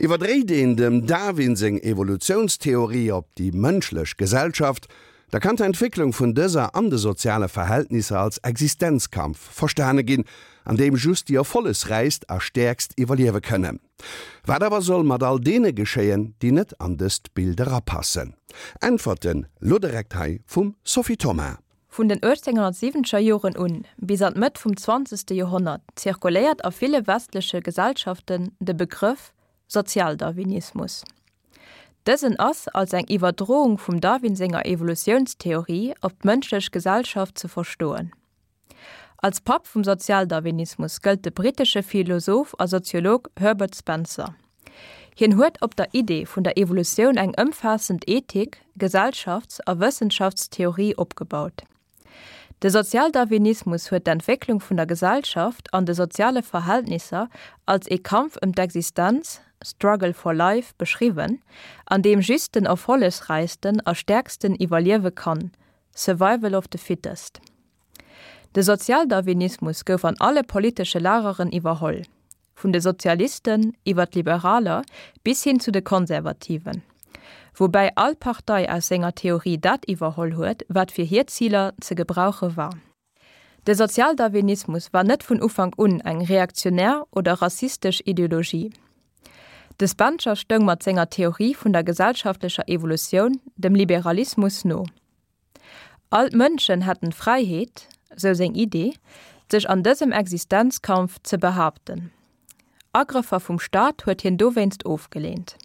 Iwwerdréit een dem Darwin seng Evolutiounstheorie op déi mënschlech Gesellschaft, da kann d'Entwécklung vun dëser an de soziale Verhältnisser als Existenzkampf verstane ginn, an deem just déi erfollegsräichst a stäerkst iwwerliewe kënnen. Wat awer soll mat all deene geschéien, déi net an dëst Bild erapassen? Äntwerten lo direkt hei vum Sophie Thoma. Vun den 1870er Joren un bis an d'Mëtt vum zwanzegste Joerhonnert zirkuléiert a ville westleche Gesellschaften de Begrëff Sozialdarwinismus. Dësen ass als eng Iwwerdroung vum Darwin senger Evolutiounstheorie op d'mënschlech Gesellschaft ze verstoen. Als Papp vum Sozialdarwinismus gëllt de brittesche Philosoph a Soziolog Herbert Spencer. Hien huet op der Idee vun der Evolutioun eng ëmfaassend Ethik-, Gesellschafts a Wëssenschaftstheorie opgebaut. De Sozialdarwinismus huet d'Entwécklung vun der Gesellschaft an de soziale Verhältnisser als ee Kampf ëm d'Existenz, struggle for life, beschriwwen, an deem just den erfollegsräichsten a stäerksten iwwerliewe kann, survival of the fittest. De Sozialdarwinismus gouf an alle politesche Lageren iwwerholl. Vun de Sozialisten iwwer d'Liberaler bis hin zu de Konservativen. Woubäi all Partei aus senger Theorie dat iwwerholl huet, wat fir hir Ziler ze gebrauche war. De Sozialdarwinismus war net vun Ufank un eng reaktionär oder rassistesch Ideologie. De Spencer stoung mat senger Theorie vun der gesellschaftlecher Evolutioun dem Liberalismus no. All d'Mënschen hätten d'Fräiheet, sou seng Idee, sech an dësem Existenzkampf ze behaapten. Agrëffer vum Staat huet hien dowéinst ofgeleent.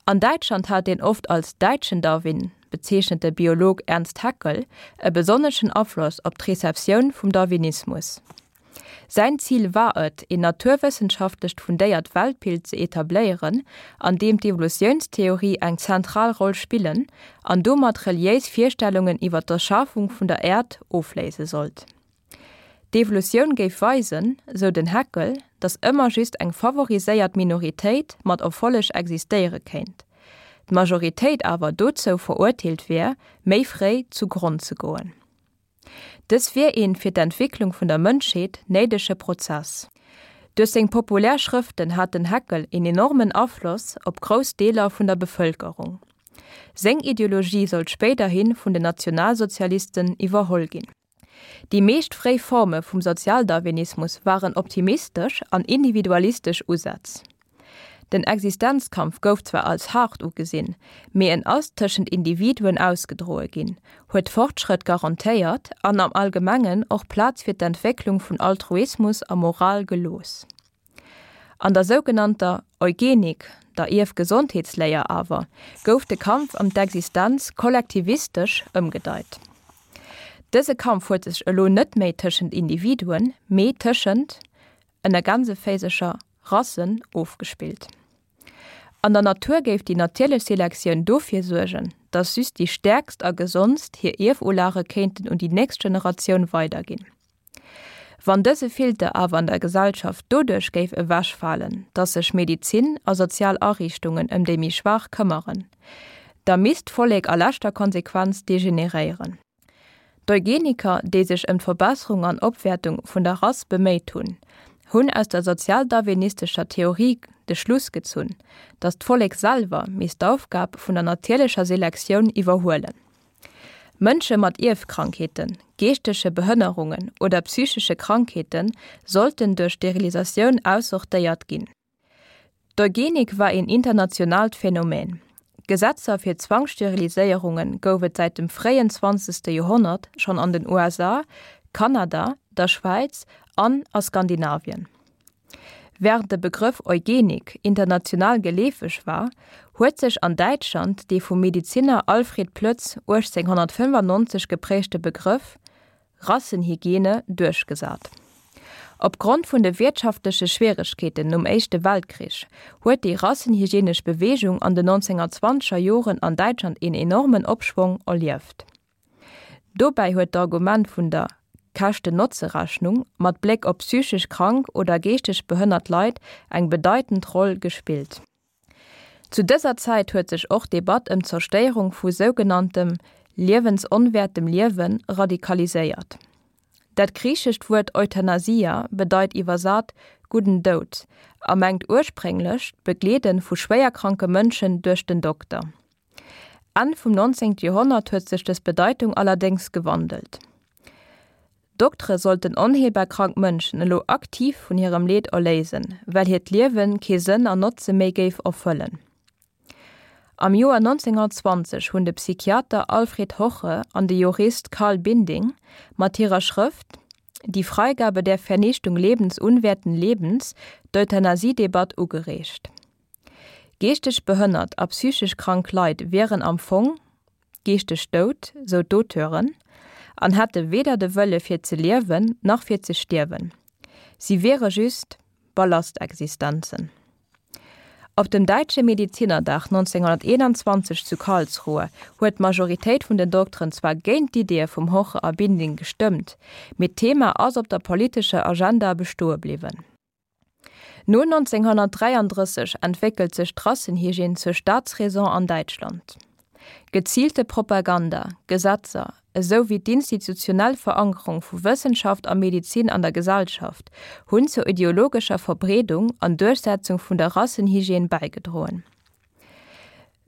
An Däitschland hat deen oft als däitschen Darwin bezeechnete Biolog Ernst Haeckel e besonneschen Afloss op d'Receptioun vum Darwinismus. Säin Zil war et, een naturwëssenschaftlecht fundéiert Weltbild ze etabléieren, an deem d'Evolutiounstheorie eng zentral Roll spillen an domat reliéis Virstellungen iwwer d'Erschafung vun der Äerd ofléise sollt. D'Evolutioun géif weisen, sou den Haeckel, datt ëmmer just eng favoriséiert Minoritéit mat Erfolleg existéiere kéint, d'Majoritéit awer dozou verurteelt wier, méi fréi zu Gronn ze goen. Dës wier een fir d'Entwicklung vun der Mënschheet néidege Prozess. Duerch seng populär Schrëften hat den Haeckel een enormen Afloss op grouss Deeler vun der Bevëlkerung. Seng Ideologie sollt spéiderhi vun den Nationalsozialisten iwwerholl ginn. Déi meescht fréi Forme vum Sozialdarwinismus waren optimistesch an individualistesch Usätz. Den Existenzkampf gouf zwar als haart ugesinn, mee en ass tëschent Individuen ausgedroe ginn, huet Fortschrëtt garantéiert an am Allgemengen och Plaz fir d'Entwécklung vun Altruismus a Moral gelooss. An der sougenannter Eugenik, der Ierfgesondheetsléier awer, gouf de Kampf ëm d'Existenz kollektivistesch ëmgedeit. Dëse Kampf huet sech elo net méi tëschent Individuen, mee tëschent ënner Gänseféisercher, Rassen ofgespillt. An der Natur géif déi natierlech Selektioun dofir suergen, datt just déi stäerkst a gesondst hir Ierfulage kéinten un déi nächst Generatioun weiderginn. Wann dëse Filter awer an der Gesellschaft doduerch géif ewechfalen, datt sech Medizin a sozial Ariichtungen ëm déi méi Schwaach këmmeren, da misst d'Vollek a leschter Konsequenz degeneréieren. D'Eugeniker, déi sech ëm d'Verbesserung an Opwäertung vun der Rass beméit hunn, hunn aus der sozialdarwinistescher Theorie de Schluss gezunn, datt d'Vollek selwer misst d'Aufgab vun der natierlecher Selektioun iwwerhuelen. Mënsche mat Ierfkrankheeten, geeschtege Behënnerungen oder psychesche Krankheete sollten duerch Sterilisatioun aussortéiert ginn. D'Eugenik war een internationaalt Phänomen. Gesetzer fir Zwangssteriliséierunge gouf et säit dem fréien zwanzegste Joerhonnert schonn an den USA, Kanada, der Schwäiz an a Skandinavien. Wärend de Begrëff Eugenik international geleefeg war, huet sech an Däitschland dee vum Mediziner Alfred Ploetz 1895 geprägte Begrëff Rassenhygiene duerchgesat. Op Grond vun de wiertschaftleche Schwieregkeeten nom Éischte Weltkrich huet déi rassenhygienesch Beweegung an den 1920er Joren an Däitschland een enormen Opschwong erlieft. Dobäi huet d'Argument vun der Käschten-Notze-Rechnung mat Bléck op psychesch krank oder geeschteg behënnert Leit eng bedeitend Roll gespillt. Zu dëser Zäit huet sech och d'Debatt ëm d'Zerstéierung vu sougenanntem liewensonwäertem Liewe radikaliséiert. Dat griichescht Wuert Euthanasia bedeit iwwersat. gudden Doud a mengt ursprénglech d'Begleede vu schwéierkranke Mënschen duerch den Dokter. Enn vum 19. Joerhonnert huet sech dës Bedeitung allerdéngs gewandelt. Doktere sollten onheelbar krank Mënschen elo aktiv vun hirem Leed erléisen, well hiert Liewe kee Sënn an Notze méi géif erfëllen. Am Joer 1920 hunn de Psychiater Alfred Hoche an de Jurist Carl Binding mat hirer Schrëft Die Freigabe der Vernichtung lebensunwerten Lebens d'Euthanasiedebatt ugereegt. Geeschteg behënnert a psychesch krank Leit wieren am Fong geeschteg dout, sou d'Auteuren, an hätte weder de Wëlle fir ze liewen nach fir ze stierwen. Si wiere just Ballastexistenzen. Op dem Däitsche Medizinerdag 1921 zu Karlsruhe huet d'Majoritéit vun den Dokteren zwar géint d'Iddie vum Hoche a Binding gestëmmt, mee d'Thema ass op der politescher Agenda bestoe bliwwen. No 1933 entwéckelt sech d'Rassenhygiène zur Staatsräson an Däitschland. Geziilte Propaganda, Gesetzer, esou wéi d'institutionell Verankerung vu Wëssenschaft a Medizin an der Gesellschaft hunn zur ideologescher Verbreedung an Duerchsetzung vun der Rassenhygiène bäigedroen.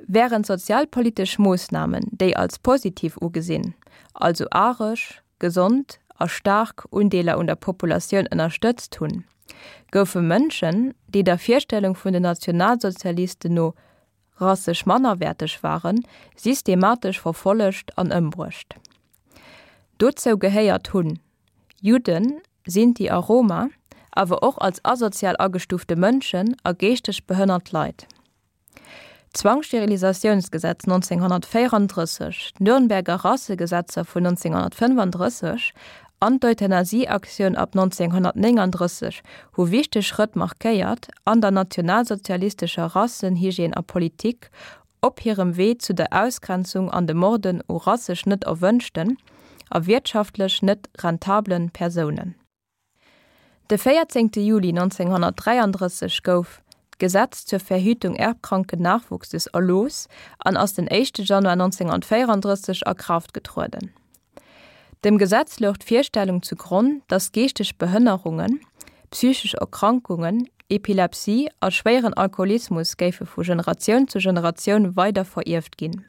Wärend sozialpolitesch Moossnamen, déi als positiv ugesinn, also aresch, gesond a staark Undeeler un der Populatioun ënnerstëtzt hunn, goufe Mënschen, déi der Virstellung vun den Nationalsozialisten no rassesch mannerwäerteg waren, systematesch verfollegt an ëmbruecht. Dozou gehéiert hunn Judden, Sinti a Roma, awer och als asozial agestufte Mënschen a geeschteg behënnert Leit. D'Zwangssterilisatiounsgesetz 1934, d'Nürnberger Rassegesetzer vun 1935 an d'Euthanasieaktioun ab 1939 hu wichteg Schrëtt markéiert an der nationalsozialistescher Rassenhygiène a Politik op hirem Wee zu der Ausgrenzung an de Morden u rassesch net erwënschten a wiertschaftlech net rentablen Persounen. De 14 Juli 1933 gouf d'Gesetz zur Verhütung erbkranken Nachwuchses erlooss an ass den éischte Januar 1934 a Kraaft getrueden. Dem Gesetz louch d'Virstellung zu Gronn, datt geeschteg Behënnerungen, psychesch Erkrankungen, Epilepsie a schwéieren Alkoholismus géife vu Generatioun zu Generatioun weider verierft ginn.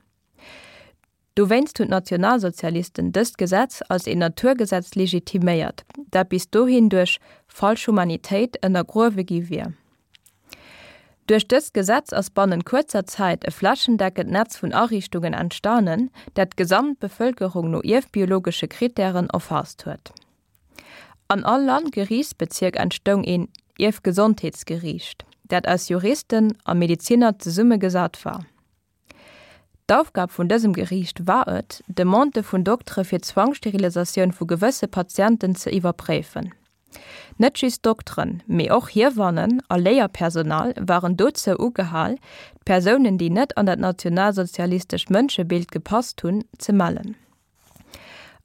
Dowéinst hunn d'Nationalsozialisten dëst Gesetz als een Naturgesetz legitiméiert, dat bis dohin duerch falsch Humanitéit ënnergruewe gi wier. Duerch dëst Gesetz ass bannent kuerzer Zäit e flächendeckend Netz vun Ariichtungen entstanen, dat d'gesamt Bevëlkerung no ierfbiologesche Krittären erfaasst huet. An all Landgeriichtsbezierk entstoung een Ierfgesondheetsgeriicht, dat aus Juristen a Medeziner zesummegesat war. D'Aufgab vun dësem Geriicht war et, Demandë vun Doktere fir d'Zwangssterilisatioun vu gewësse Patienten ze iwwerpréifen. Net just Dokteren, mee och Hiewannen a Léierpersonal waren dozou ugehal, d'Persounen, déi net an dat nationalsozialistescht Mënschebild gepasst hunn, ze mellen.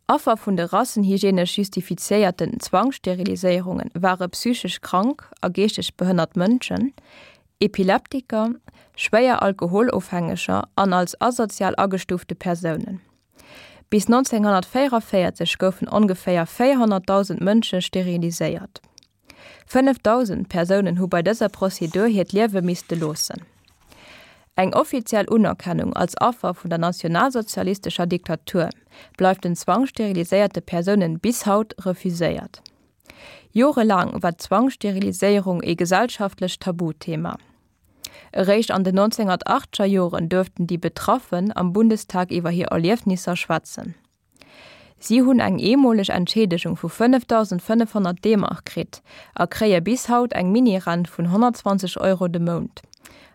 Affer vun de rassenhygienesch justifiziéierten Zwangssteriliséierunge ware psychesch krank a geeschteg behënnert Mënschen, Epileptiker, schwéier Alkoholofhängeger an als asozial agestuufte Persounen. Bis 1944 goufen ongeféier 400.000 Mënsche steriliséiert. 5.000 Persounen hu bei dëser Prozedur hiert Liewe misste loossen. Eng offiziell Unerkennung als Affer vun der nationalsozialistescher Diktatur bleift den zwangssteriliséierte Persounen bis haut refuséiert. Jorelaang war d'Zwangssteriliséierung ee gesellschaftlecht Tabuthema. Eréischt an den 1980er Joren duerften déi Betraffen am Bundestag iwwer hir Erliefnisser schwätzen. Si hunn eng eemoleg Entschiedegung vu 5.500 D-Mark kritt a kréie bis haut eng Mini-Rent vun 120 Euro de Mount,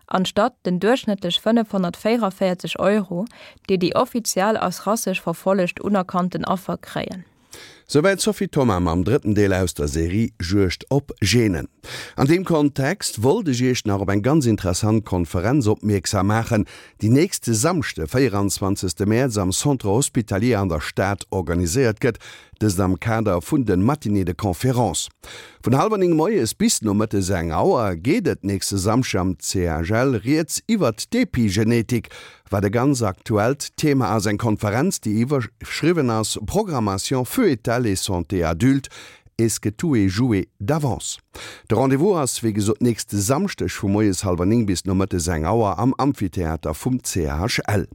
anstatt den duerchschnëttlech 544 Euro, déi déi offiziell als rassesch verfollegt unerkannten Affer kréien. Souwäit d'Sophie Thoma mam drëtten Deel aus der Serie Juegd op Genen. An deem Kontext wollt ech Iech nach op eng ganz interessant Konferenz opmierksam maachen, déi nächste Samschde, 24 Mäerz am Centre Hospitalier an der Stad organiséiert gëtt, dëst am Kader vun de Matinées de conférences. Vun hallwer 9 moies bis nomëttes eng Auer geet et nächste Samschde am CHL rieds iwwert d'Epigenetik, Wat e ganz aktuellt Thema ass, eng Konferenz, déi iwwerschriwwen ass Programmation foetale et santé adulte. Est-ce que tout est joué d'avance? De Rendez-vous ass wéi gesot nächste Samschdeg vu moies hallwer 9 bis nomëttes eng Auer am Amphitheater vum CHL.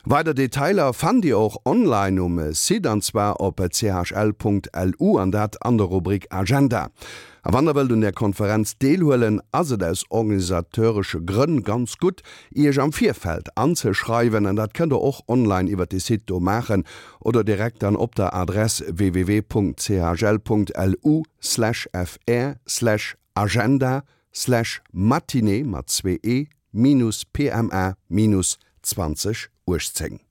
Weider Detailer fannt Dir och online um Site an zwar op chl.lu an dat an der Rubrik Agenda. A wann der wëllt un där Konferenz deelhuelen, ass et aus organisateuresche Grënn ganz gutt, Iech am Virfeld anzeschreiwen an dat kënnt der och online iwwert de Site do maachen oder direkt dann op der Adress www.chl.lu/fr/agenda/matinée mat zwee e minus pma minus 2018.